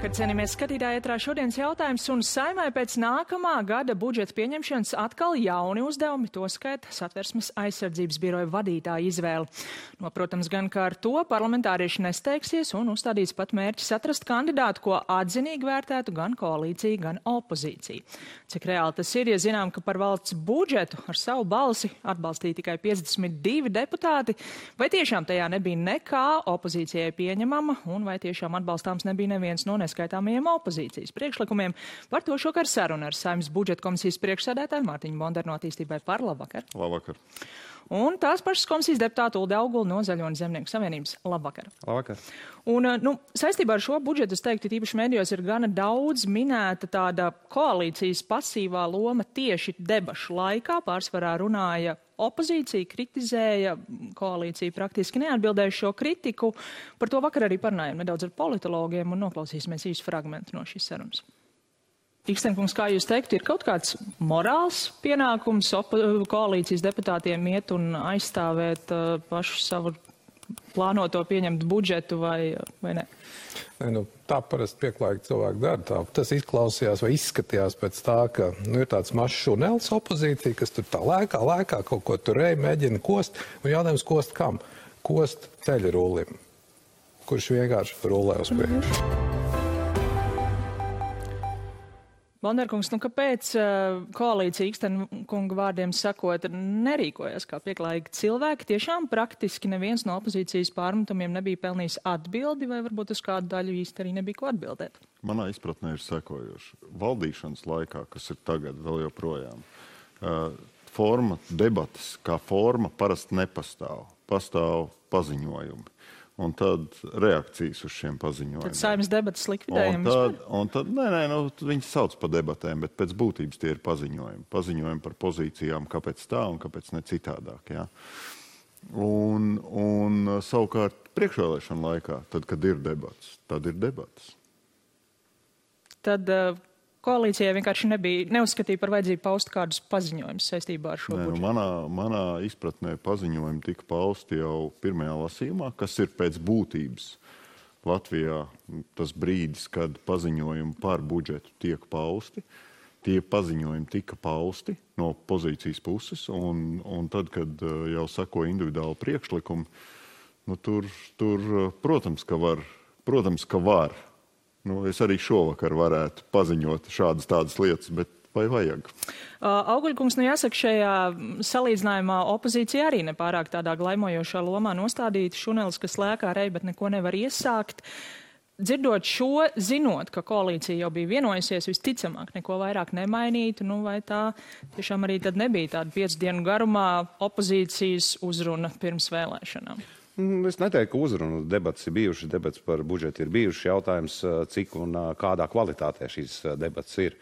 Labvakar, cienījamies skatītāji, ētrā šodienas jautājums, un Saeimai pēc nākamā gada budžeta pieņemšanas atkal jauni uzdevumi, toskait Satversmes aizsardzības biroja vadītāja izvēle. Protams, gan kā ar to parlamentārieši nesteigsies un uzstādīs pat mērķis atrast kandidātu, ko atzinīgi vērtētu gan koalīcija, gan opozīcija. Cik reāli tas ir, ja zinām, ka par valsts budžetu ar savu balsi atbalstīja tikai 52 deputāti, vai tiešām tajā nebija nekā opozīcijai pieņemama, un vai tiešām atbalstāms nebija neviens no neskaitāmajiem opozīcijas priekšlikumiem. Par to šokar saruna ar Saeimas budžeta komisijas priekšsēdētāju Mārtiņu Bondaru no Attīstībai par. Labvakar. Labvakar. Un tās pašas komisijas deputāta Ulde Augula no Zaļo un Zemnieku savienības. Labvakar. Labvakar. Un, saistībā ar šo budžetu, es teiktu, tīpaši medijos ir gana daudz minēta tāda koalīcijas pasīvā loma tieši debašu laikā. Pārsvarā runāja opozīcija, kritizēja, koalīcija praktiski neatbildēja šo kritiku. Par to vakar arī parunājām nedaudz ar politologiem un noklausīsimies īsu fragmentu no šīs sarunas. Ikstenkungs, kā jūs teiktu, ir kaut kāds morāls pienākums koalīcijas deputātiem iet un aizstāvēt pašu savu plānoto pieņemt budžetu vai ne? Tā parasti pieklājīgi cilvēki dara. Tas izklausījās vai izskatījās pēc tā, ka ir tāds mazs šunelis opozīcija, kas tur tā lēkā, kaut ko tur mēģina kost. Un jautājums, kost kam? Kost ceļa rullim, kurš vienkārši rulē uz priekšu. Bondarkungs, kāpēc koalīcija Ikstenkunga vārdiem sakot nerīkojas kā pieklājīgi cilvēki? Tiešām praktiski neviens no opozīcijas pārmetumiem nebija pelnījis atbildi, vai varbūt uz kādu daļu īsti arī nebija ko atbildēt? Manā izpratnē ir sekojoši. Valdīšanas laikā, kas ir tagad vēl joprojām, forma debatas kā forma parasti nepastāv. Pastāv paziņojumi. Un tad reakcijas uz šiem paziņojumiem. Tad Saeimas debatas likvidējam vispār? Viņi sauc par debatēm, bet pēc būtības tie ir paziņojumi. Paziņojumi par pozīcijām, kāpēc tā un kāpēc ne citādāk. Ja? Un savukārt priekšvēlēšana laikā, tad, kad ir debats, tad ir debatas. Tad koalīcijai vienkārši neuzskatīja par vajadzību paust kādus paziņojumus saistībā ar šo budžetu. Manā izpratnē paziņojumi tika pausti jau pirmajā lasījumā, kas ir pēc būtības Latvijā tas brīdis, kad paziņojumi par budžetu tiek pausti. Tie paziņojumi tika pausti no pozīcijas puses, un tad, kad jau sako individuāli priekšlikumi, tur protams, ka var. Es arī šovakar varētu paziņot šādas tādas lietas, bet vai vajag? Auguļkungs, jāsaka, šajā salīdzinājumā opozīcija arī nepārāk tādā glaimojošā lomā nostādīta šunelis, kas lēkā rej, bet neko nevar iesākt. Dzirdot šo, zinot, ka koalīcija jau bija vienojusies, visticamāk neko vairāk nemainītu, vai tā tiešām arī tad nebija tāda 5 dienu garumā opozīcijas uzruna pirms vēlēšanām? Es neteiktu, ka uzrunu debats ir bijušas, debats par budžetu ir bijušas, jautājums, cik un kādā kvalitātē šīs debats ir.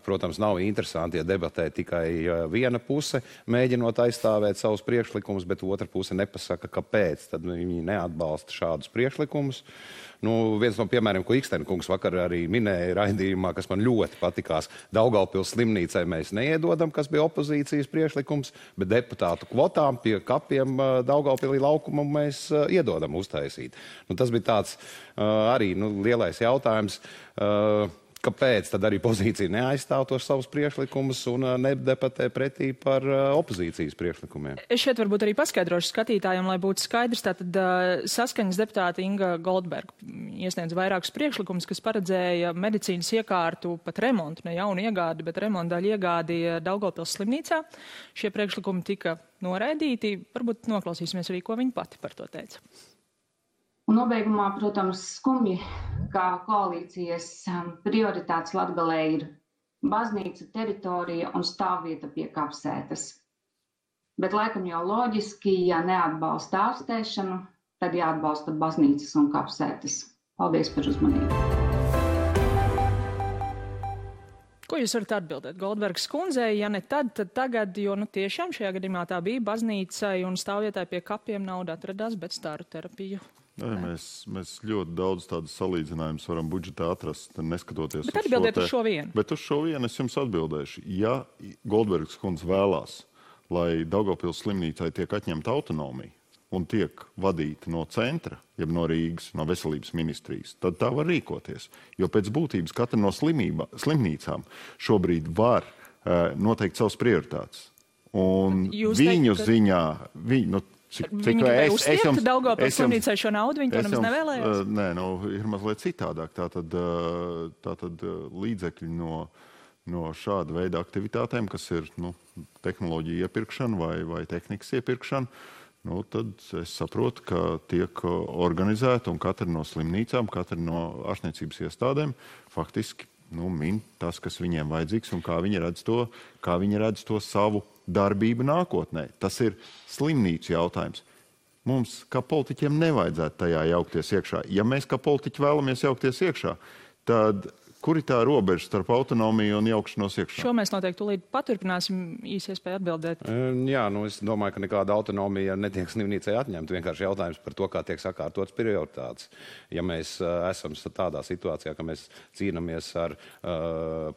Protams, nav interesanti, ja debatē tikai viena puse, mēģinot aizstāvēt savus priekšlikumus, bet otra puse nepasaka, kāpēc. Tad viņi neatbalsta šādus priekšlikumus. Viens no piemēriem, ko Ikstenkungs vakar arī minēja raidījumā, kas man ļoti patikās, Daugavpils slimnīcai mēs neiedodam, kas bija opozīcijas priekšlikums, bet deputātu kvotām pie kapiem Daugavpilī laukumu mēs iedodam uztaisīt. Tas bija tāds arī lielais jautājums. Kāpēc tad arī pozīcija neaizstāv tos savus priekšlikumus un nedebatē pretī par opozīcijas priekšlikumiem? Es šeit varbūt arī paskaidrošu skatītājiem, lai būtu skaidrs. Tātad Saskaņas deputāte Inga Goldberga iesniedz vairākus priekšlikumus, kas paredzēja medicīnas iekārtu pat remontu, ne jaunu iegādi, bet remontu daļu iegādi Daugavpils slimnīcā. Šie priekšlikumi tika noraidīti. Varbūt noklausīsimies arī, ko viņa pati par to teica. Un nobeigumā, protams, skumji, kā koalīcijas prioritātes Latgalē ir baznīca, teritorija un stāvvieta pie kapsētas. Bet laikam jau loģiski, ja neatbalsta ārstēšanu, tad jāatbalsta baznīcas un kapsētas. Paldies par uzmanību. Ko jūs varat atbildēt Goldbergas kundzei? Ja ne tad tagad, jo tiešām šajā gadījumā tā bija baznīcai un stāvvietai pie kapiem nauda atradās, bet staru terapiju. Mēs ļoti daudz tādas salīdzinājumus varam budžetā atrast, neskatoties bet atbildiet uz šo vienu. Bet uz šo vienu es jums atbildēšu. Ja Goldbergas kundze vēlās, lai Daugavpils slimnīcai tiek atņemta autonomija, un tiek vadīta no centra, jeb no Rīgas, no veselības ministrijas, tad tā var rīkoties. Jo pēc būtības katra no slimnīcām šobrīd var noteikt savas prioritātes. Un viņu ziņā, Viņi gribēja uztiekt Daugavpils slimnīcai šo naudu, viņi to nemaz nevēlējās? Nē, ir mazliet citādāk. Tātad līdzekļi no šāda veida aktivitātēm, kas ir tehnoloģija iepirkšana vai tehnikas iepirkšana, tad es saprotu, ka tiek organizēta un katra no slimnīcām, katra no ārstniecības iestādēm faktiski min tas, kas viņiem vajadzīgs un kā viņi redz to savu darbību nākotnē. Tas ir slimnīcu jautājums. Mums, kā politiķiem, nevajadzētu tajā jaukties iekšā. Ja mēs, kā politiķi, vēlamies jaukties iekšā, tad kur ir tā robeža starp autonomiju un jaukšanos iekšā? Šo mēs noteikti tūlīt paturpināsim, īsi iespēja atbildēt. Jā, es domāju, ka nekāda autonomija netiek slimnīcai atņemta. Vienkārši jautājums par to, kā tiek sakārtotas prioritātes. Ja mēs esam tādā situācijā, ka mēs cīnāmies ar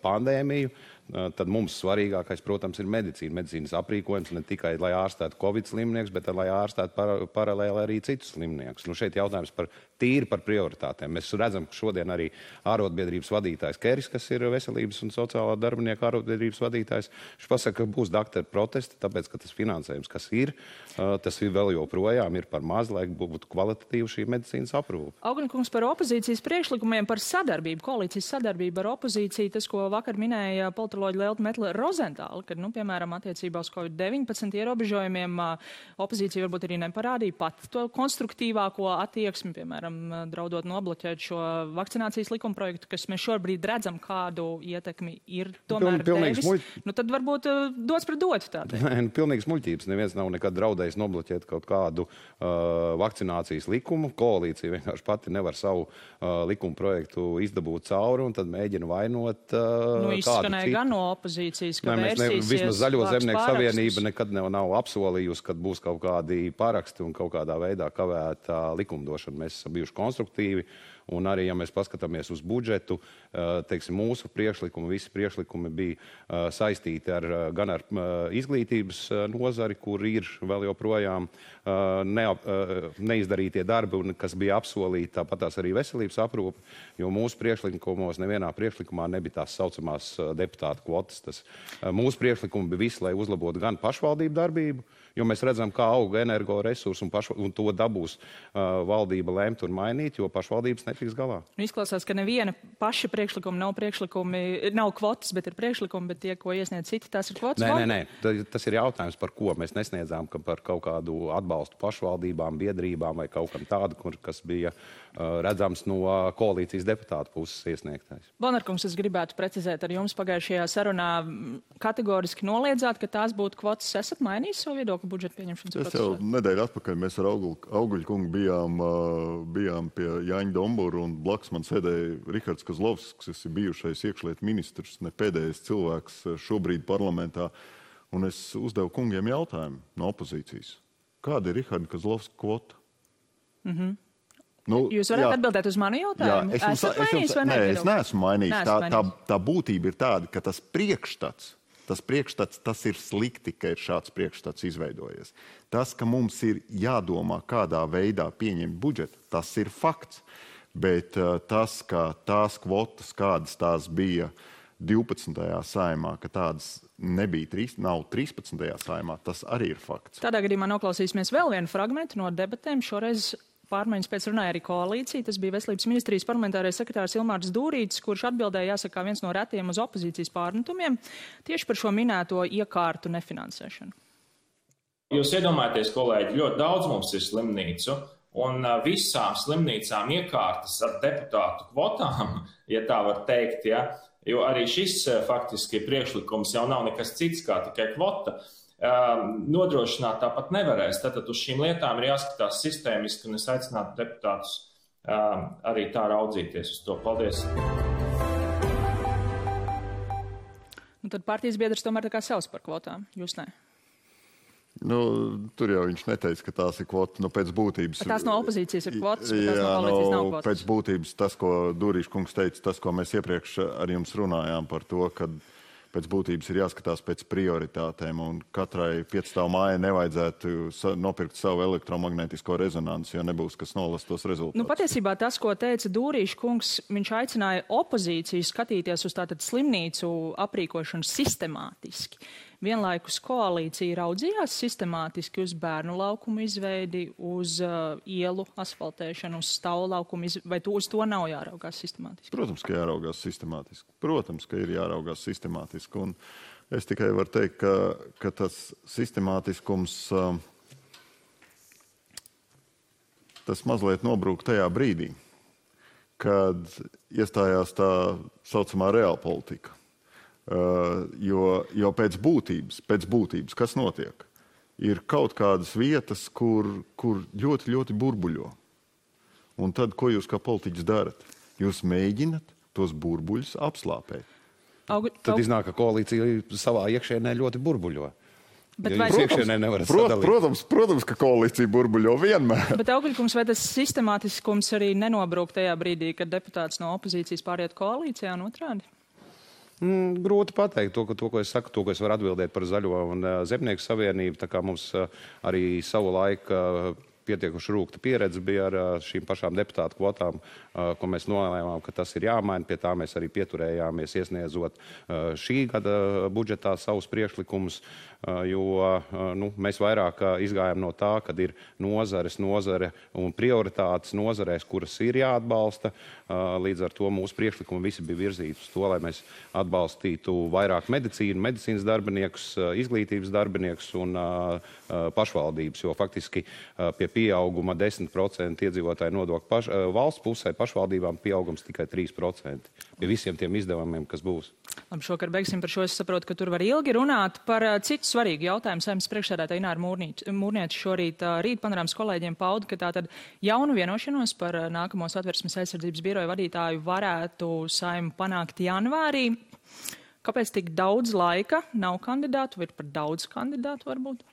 pandēmiju, tad mums svarīgākais, protams, ir medicīna. Medicīnas aprīkojums ne tikai, lai ārstētu Covid slimnieks, bet lai ārstētu paralēli arī citus slimniekus. Šeit jautājums tīri par prioritātēm. Mēs redzam, ka šodien arī ārotbiedrības vadītājs Keris, kas ir veselības un sociālā darbinieka ārotbiedrības vadītājs, viņš pasaka, ka būs doktoru protesti, tāpēc, ka tas finansējums, kas ir, tas ir vēl joprojām ir par maz, lai būtu kvalitatīva šī medicīnas aprūpe. Auguņkungs, par opozīcijas priekšlikumiem, par sadarbību, koalīcijas sadarbību ar opozīciju, tas, ko vakar minēja politoloģi Lelta Metle-Rozentāla, kad, piemēram, attiecībā uz COVID-19 ierobežojumiem opozīcija varbūt arī neparādīja pat to konstruktīvāko attieksmi, piemēram, draudot nobloķēt šo vakcinācijas likumprojektu, kas mēs šobrīd redzam, kādu ietekmi ir tomēr devis. Tad varbūt dots pret dotu tādēļ. Nē, pilnīgs muļķības. Neviens nav nekad draudējis nobloķēt kaut kādu vakcinācijas likumu. Koalīcija vienkārši pati nevar savu likumprojektu izdabūt cauri un tad mēģina vainot kādu izskanēja gan no opozīcijas, ka vērsīsies. Vismaz Zaļo zemnieku savienība nekad nav apsolījusi, kad būs kaut kādi paraksti un kaut kādā veidā kavēta likumdošana. Mēs esam bijuši konstruktīvi, un arī, ja mēs paskatāmies uz budžetu, teiksim, mūsu priekšlikumi, visi priekšlikumi bija saistīti gan ar izglītības nozari, kur ir vēl joprojām neizdarītie darbi, kas bija apsolīti, tāpatās arī veselības aprūpe, jo mūsu priekšlikumos nevienā priekšlikumā nebija tās saucamās deputātu kvotas. Mūsu priekšlikumi bija visi, lai uzlabotu gan pašvaldību darbību, jo mēs redzam, kā auga energoresursi un to dabūs valdība lemt un mainīt, jo pašvaldības netiks galā. Izklausās, ka neviena paša priekšlikuma nav kvotas, bet ir priekšlikumi, bet tie, ko iesniedz citi, tās ir kvotas? Nē. Tas ir jautājums, par ko mēs nesniedzām, par kaut kādu atbalstu pašvaldībām, biedrībām vai kaut kam tādu, kas bija redzams no koalīcijas deputātu puses iesniegtais. Bonarkungs, es gribētu precizēt ar jums pagājušajā sarunā kategoriski noliedzāt, ka tās būtu kvotas. Esat mainījis savu viedokli budžeta pieņemšanas procesā? Es jau nedēļu atpakaļ mēs ar Auguļkungu bijām pie Jāņa Dombura un blakus man sēdēja Rihards Kozlovskis, kas ir bijušais iekšlietu ministrs, ne pēdējais cilvēks šobrīd parlamentā. Un es uzdevu kungiem jautājumu no opozīcijas. Kāda ir Riharda Kozlovska kvota? Jūs varat atbildēt uz manu jautājumu? Esat mainījis vai nevienot? Nē, es neesmu mainījis. Tā būtība ir tāda, ka tas priekšstats, tas ir slikti, ka ir šāds priekšstats izveidojies. Tas, ka mums ir jādomā, kādā veidā pieņemt budžetu, tas ir fakts. Bet tas, ka tās kvotas, kādas tās bija 12. saimā, ka tādas nav 13. saimā, tas arī ir fakts. Tādā gadījumā noklausīsimies vēl vienu fragmentu no debatēm. Šoreiz pārmaiņas pēc runāja arī koalīcija. Tas bija Veselības ministrijas parlamentārais sekretārs Ilmārs Dūrītis, kurš atbildēja, jāsaka, viens no retiem uz opozīcijas pārmetumiem tieši par šo minēto iekārtu nefinansēšanu. Jūs iedomājaties, kolēģi, ļoti daudz mums ir slimnīcu, un visām slimnīcām iekārtas ar deputātu kvotām, ja tā var teikt, ja, jo arī šis faktiski priekšlikums jau nav nekas cits kā tikai kvota. Nodrošināt tāpat nevarēs. Tātad uz šīm lietām ir jāskatās sistēmiski, un es aicinātu deputātus arī tā raudzīties uz to. Paldies! Tad partijas biedrs tomēr tā kā savs par kvotām. Jūs ne? Tur jau viņš neteica, ka tās ir kvotas, pēc būtības. Tās no opozīcijas ir kvotas, bet tās no koalīcijas nav kvotas. Pēc būtības tas, ko Dūrīša kungs teica, tas, ko mēs iepriekš ar jums runājām par to, ka pēc būtības ir jāskatās pēc prioritātēm, un katrai 5 mājai nevajadzētu nopirkt savu elektromagnētisko rezonanci, jo nebūs, kas nolas tos rezultātus. Nu, patiesībā tas, ko teica Dūrīša kungs, viņš aicināja opozīciju skatīties uz tātad slimnīcu aprīkošanu sistemātiski. Vienlaikus koalīcija raudzījās sistemātiski uz bērnu laukumu izveidi, uz ielu asfaltēšanu, uz stāvu laukumu izveidi, vai uz to nav jāraugās sistemātiski? Protams, ka jāraugās sistemātiski. Protams, ka ir jāraugās sistemātiski. Un es tikai varu teikt, ka tas sistemātiskums, tas mazliet nobrūk tajā brīdī, kad iestājās tā saucamā reālpolitika. Jo pēc būtības, kas notiek, ir kaut kādas vietas, kur ļoti, ļoti burbuļo. Un tad, ko jūs kā politiķis darat? Jūs mēģinat tos burbuļus apslāpēt. Tad iznāk, ka koalīcija savā iekšēnē ļoti burbuļo. Bet Protams, ka koalīcija burbuļo vienmēr. Bet Augļkungs, vai tas sistemātiskums arī nenobrūk tajā brīdī, kad deputāts no opozīcijas pāriet koalīcijā un otrādi? Grūti pateikt to, ko es saku, to, ko es varu atbildēt par Zaļo un Zemnieku savienību, tā kā mums arī savu laiku pietiekuši rūkta pieredze bija ar šīm pašām deputātu kvotām, ko mēs nolēmām, ka tas ir jāmaina. Pie tā mēs arī pieturējāmies, iesniedzot šī gada budžetā savus priekšlikumus, jo mēs vairāk izgājām no tā, kad ir nozare un prioritātes nozarēs, kuras ir jāatbalsta. Līdz ar to mūsu priekšlikumi visi bija virzīti uz to, lai mēs atbalstītu vairāk medicīnas darbiniekus, izglītības darbiniekus un pašvaldības, jo faktiski pie pieauguma 10% iedzīvotāju nodokļu valsts pusē, pašvaldībām pieaugums tikai 3% pie visiem tiem izdevumiem, kas būs. Labi, šokar beigsim par šo. Es saprotu, ka tur var ilgi runāt par citu svarīgu jautājumu. Saimnes priekšsēdētāja Ināra Mūrniece šorīt rīt panorāmas kolēģiem pauda, ka tātad jaunu vienošanos par nākamo Satversmes aizsardzības biroja vadītāju varētu Saima panākt janvārī. Kāpēc tik daudz laika nav kandidātu, vai ir par daudz kandidātu varbūt?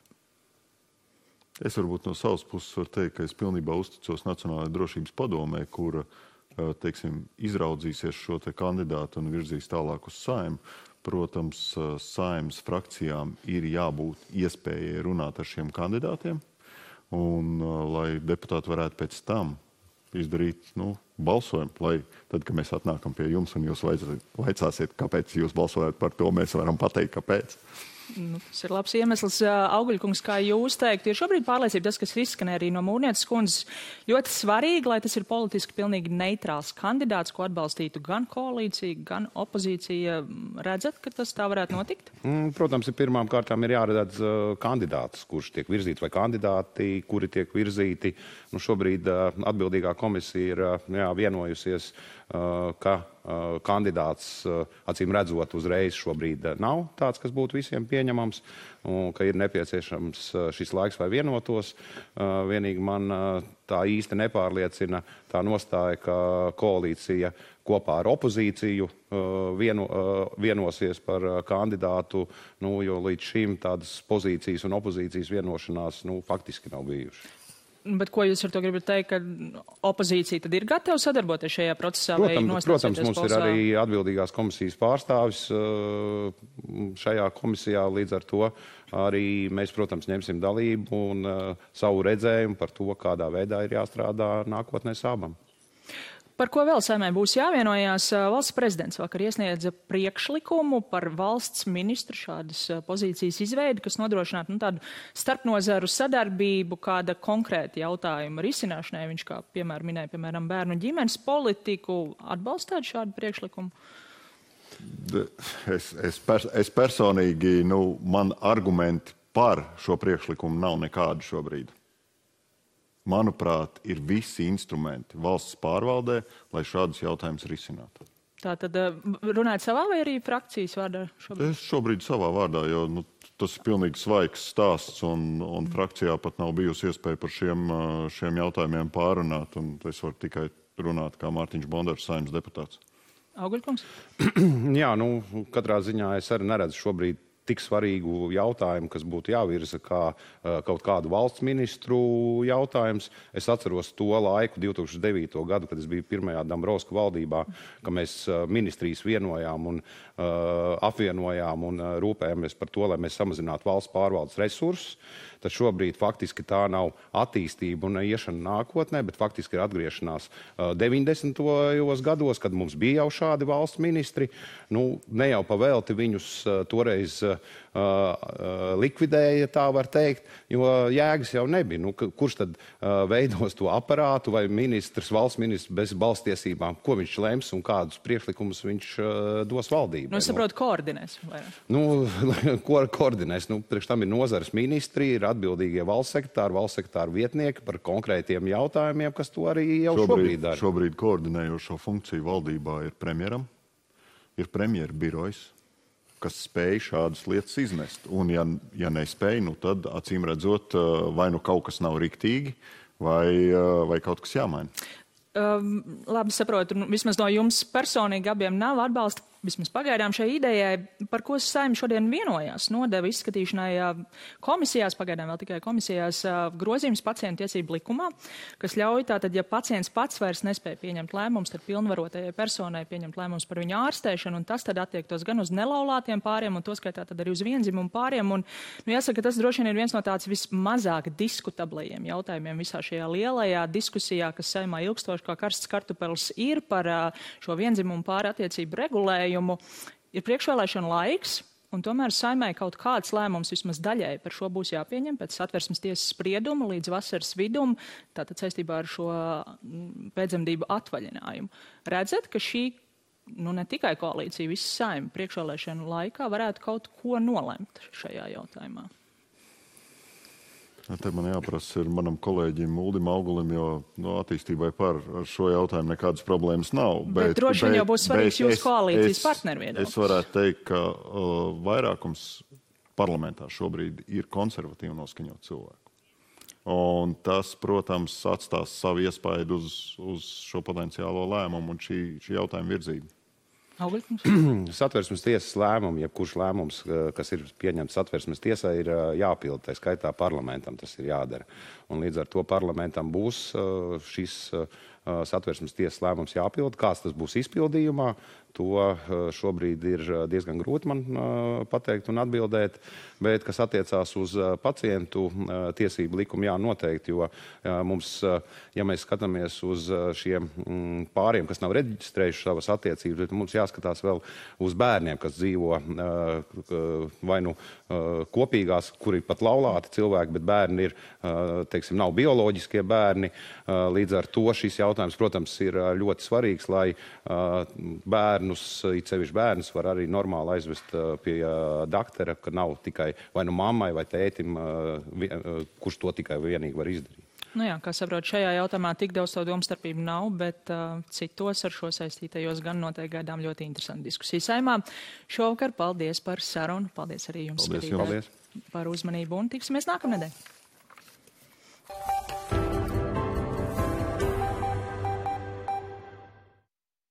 Es varbūt no savas puses varu teikt, ka es pilnībā uzticos Nacionālajai drošības padomē, kura, teiksim, izraudzīsies šo te kandidātu un virzīs tālāk uz Saimu. Protams, Saimas frakcijām ir jābūt iespējai runāt ar šiem kandidātiem, un lai deputāti varētu pēc tam izdarīt, balsojumu, lai tad, kad mēs atnākam pie jums un jūs vaicāsiet, kāpēc jūs balsojat par to, mēs varam pateikt, kāpēc. Tas ir labs iemesls. Augļkungs, kā jūs teiktu, ir šobrīd pārliecība tas, kas izskanēja arī no Mūrnieces kundzes, ļoti svarīgi, lai tas ir politiski pilnīgi neitrāls kandidāts, ko atbalstītu gan koalīcija, gan opozīcija. Redzat, ka tas tā varētu notikt? Protams, pirmām kārtām ir jāredz kandidāts, kurš tiek virzīts, vai kandidāti, kuri tiek virzīti. Šobrīd atbildīgā komisija ir vienojusies, ka kandidāts, acīm redzot, uzreiz šobrīd nav tāds, kas būtu visiem pieņemams, un ka ir nepieciešams šis laiks, lai vienotos. Vienīgi man tā īsti nepārliecina tā nostāja, ka koalīcija kopā ar opozīciju vienosies par kandidātu, jo līdz šim tādas pozīcijas un opozīcijas vienošanās faktiski nav bijušas. Bet ko jūs ar to gribat teikt, ka opozīcija tad ir gatava sadarboties šajā procesā? Protams, mums ir arī atbildīgās komisijas pārstāvis šajā komisijā, līdz ar to arī mēs, protams, ņemsim dalību un savu redzējumu par to, kādā veidā ir jāstrādā nākotnē Sābam. Par ko vēl Saimai būs jāvienojās? Valsts prezidents vakar iesniedza priekšlikumu par valsts ministru šādas pozīcijas izveidi, kas nodrošinātu tādu starpnozaru sadarbību, kāda konkrēta jautājuma risināšanai. Viņš, kā minēja, piemēram, bērnu ģimenes politiku, atbalstāt šādu priekšlikumu? Es personīgi, man argumenti par šo priekšlikumu nav nekādi šobrīd. Manuprāt, ir visi instrumenti valsts pārvaldē, lai šādus jautājumus risinātu. Tā tad runājat savā vai arī frakcijas vārdā šobrīd? Es šobrīd savā vārdā, jo tas ir pilnīgi svaigs stāsts un frakcijā pat nav bijusi iespēja par šiem jautājumiem pārunāt, un es varu tikai runāt kā Mārtiņš Bondars, Saeimas deputāts. Augļkungs? Jā, katrā ziņā es arī neredzu šobrīd tik svarīgu jautājumu, kas būtu jāvirza kā kaut kādu valsts ministru jautājums. Es atceros to laiku, 2009. Gadu, kad es biju pirmajā Dombrovska valdībā, ka mēs ministrijas vienojām un apvienojām un rūpējamies par to, lai mēs samazinātu valsts pārvaldes resursus. Tad šobrīd faktiski tā nav attīstība un iešana nākotnē, bet faktiski ir atgriešanās 90. gados, kad mums bija jau šādi valsts ministri. Nu, ne jau pavēlti viņus toreiz likvidēja, tā var teikt, jo jēgas jau nebija. Nu, kurš tad veidos to aparātu vai valsts ministrs bez balstiesībām, ko viņš lems un kādus priekšlikumus viņš dos valdībai? Nu, es saprotu, koordinēs. Nu, ko koordinēs? Nu, priekš tam ir nozares ministri, ir atbildīgie valsts sekretāri vietnieki par konkrētiem jautājumiem, kas to arī jau šobrīd dara. Šobrīd koordinējošo funkciju valdībā ir premjeram, ir premjera birojs, kas spēj šādas lietas iznest. Un ja nespēj, nu tad acīm redzot, vai nu kaut kas nav riktīgi, vai kaut kas jāmaina. Labi saprotu, vismaz no jums personīgi abiem nav atbalsta, vismaz pagaidām šai idejai, par ko Saeima šodien vienojās, nodeva izskatīšanai komisijās, pagaidām vēl tikai komisijās, grozījums pacientu tiesību likumā, kas ļauj tātad, ja pacients pats vairs nespēja pieņemt lēmumus, tad pilnvarotajai personai pieņemt lēmumus par viņu ārstēšanu, un tas tad attiektos gan uz nelaulātiem pāriem, un to skaitā tad arī uz viendzimumu pāriem, un, nu, jāsaka, tas droši vien ir viens no tāds vismazāk diskutablajiem jautājumiem visā šajā lielajā diskusijā, kas Saeimā ilgstoši kā karsts kartupelis ir par šo viendzimumu pāri attiecību regulējumu. Ir priekšvēlēšana laiks, un tomēr Saeimai kaut kāds lēmums vismaz daļai par šo būs jāpieņem pēc Satversmes tiesas sprieduma līdz vasaras vidum, tātad saistībā ar šo pēcdzemdību atvaļinājumu. Redzat, ka šī, nu ne tikai koalīcija, visa Saeima priekšvēlēšana laikā varētu kaut ko nolemt šajā jautājumā? Te man jāprasa ir manam kolēģim Uldim Augulim, jo attīstībai par šo jautājumu nekādas problēmas nav. Bet droši vien jau būs svarīgs jūsu koalīcijas partneru viedoklis. Es varētu teikt, ka vairākums parlamentā šobrīd ir konservatīvi noskaņot cilvēku. Un tas, protams, atstās savu iespaidu uz šo potenciālo lēmumu un šī jautājuma virzību. Satversmes tiesas lēmumi, jebkurš lēmums, kas ir pieņemts Satversmes tiesā, ir jāpilda, tā skaitā parlamentam tas ir jādara. Un līdz ar to parlamentam būs šis Satversmes tiesas lēmums jāpilda. Kāds tas būs izpildījumā, to šobrīd ir diezgan grūti man pateikt un atbildēt, bet kas attiecās uz pacientu tiesību likumu, jā, noteikti, jo mums, ja mēs skatāmies uz šiem pāriem, kas nav reģistrējuši savas attiecības, bet mums jāskatās vēl uz bērniem, kas dzīvo vai nu kopīgās, kuri pat laulāti cilvēki, bet bērni ir, teiksim, nav bioloģiskie bērni. Līdz ar to šis jautājums, protams, ir ļoti svarīgs, lai bērnus, it sevišķi bērnus, var arī normāli aizvest pie daktera, ka nav tikai vai nu mammai vai tētim, kurš to tikai vienīgi var izdarīt. Nu jā, kā saprot, šajā jautājumā tik daudz to domstarpību nav, bet citos ar šo saistītajos gan noteikti gaidām ļoti interesanti diskusiju Saeimā. Šovakar paldies par sarunu, paldies arī jums, paldies. Par uzmanību un tiksimies nākamnedēļ.